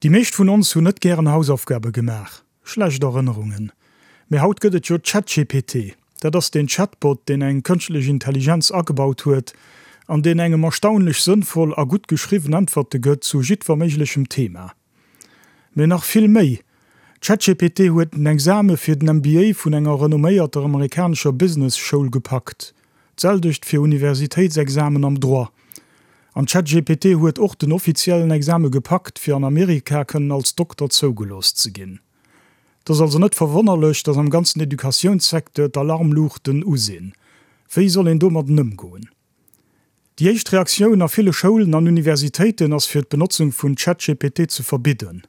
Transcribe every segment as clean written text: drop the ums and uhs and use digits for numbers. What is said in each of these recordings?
Déi meescht vun ons hunn net gären Hausaufgabe gemaach. Schlecht Erënnerungen. Mee haut gëtt et jo ChatGPT. Dat ass deen Chatbot, deen eng kënschtlech Intelligenz agebaut huet an deen engem erstaunlech sënnvoll a gutt geschriwwen Äntwerte gëtt zu jiddwer méiglechem Thema. Mee nach vill méi, ChatGPT huet den Exame fir den MBA vun enger renomméierter amerikanescher Business Schoul gepackt. D'selwecht fir Universitéitsexamen am Droit. An ChatGPT huet och den offiziellen Exame gepackt, fir an Amerika kënnen als Dokter zougelooss ze ginn. Et ass also net verwonnerlech, datt am ganzen Educatiounssecteur d'Alarmluuchten u sinn. Wéi soll een domadden ëmgoen? Déi éischt Reaktioun a ville Schoulen an Universitéiten ass fir d'Benotzung vun ChatGPT ze verbidden.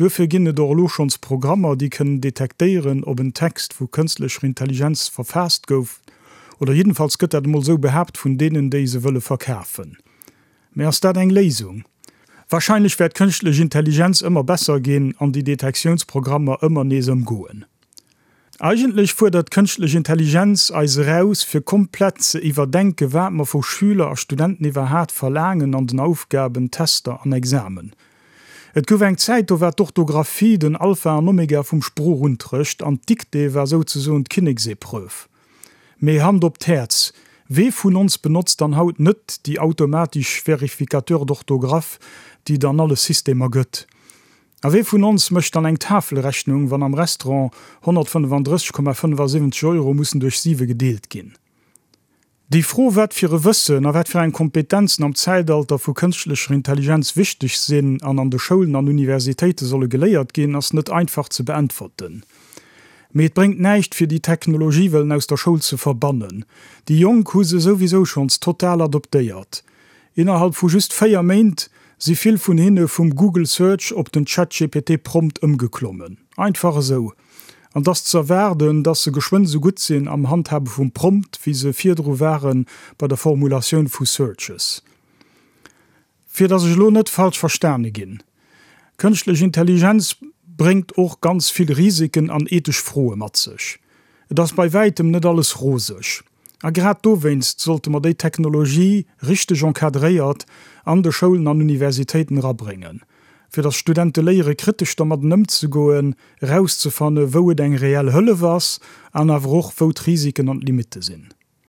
Duerfir ginn et och elo schonns Programmer, déi kënnen detektéieren, ob en Text vu kënstlecher Intelligenz verfaasst gouf, oder jiddenfalls gëtt dat emol esou behaapt vun deenen, déi se wëlle verkafen. Mä ass dat eng Léisung? Wahrscheinlech wäert d'kënschtlech Intelligenz ëmmer besser ginn an déi Detektiounsprogrammer ëmmer nees ëmgoen. Eigentlech fuerdert d'kënschtlech Intelligenz eis eraus, fir komplett ze iwwerdenke wat mer vu Schüler a Studenten iwwerhaat verlaangen an den Aufgaben, Tester an Examen. Et gouf eng Zäit, do war d'Orthographie den Alpha an Omega vum Sproochunterrecht an d'Dictée war souzesoen d'Kinneksepreuve. Mee Hand op d'Häerz, wee vun ons benotzt dann haut net déi automatisch Vérificateurs d'orthographe, déi et an alle Systemer gëtt? A wee vun ons mécht dann eng Tafelrechnung, wann am Restaurant 135,75 Euro mussen duerch siwe gedeelt ginn? Déi Fro, wat fir e Wëssen a wat fir eng Kompetenzen am Zäitalter vu kënschtlecher Intelligenz wichteg sinn an an de Schoulen an Universitéite solle geléiert ginn, ass net einfach ze beäntwerten. Mee et bréngt näischt, fir déi Technologie wëllen aus der Schoul ze verbannen. Déi Jonk hu se souwisou schonns total adoptéiert. Innerhalb vu just 4 Méint si vill vun hinne vum Google Search op den ChatGPT prompt ëmgeklommen. Einfach esou. An 't ass ze erwaarden, dass se geschwënn esou gutt sinn am Handhabe vum Prompt, wéi se virdru ware bei der Formulatioun vu Searches. Fir dass ech elo net falsch verstane ginn, Kënschtlech Intelligenz bréngt och ganz vill Risiken an ethesch Froe mat sech. Et ass bei wäitem net alles roseg. A grad dowéinst sollte mer déi Technologie richteg encadréiert an de Schoulen an Universitéiten erabréngen, fir datt Studente léiere kritesch dermadden ëmzegoen, erauszefanne wou et eng reell Hëllef ass an awer och wou d'Risiken an d'Limitte sinn.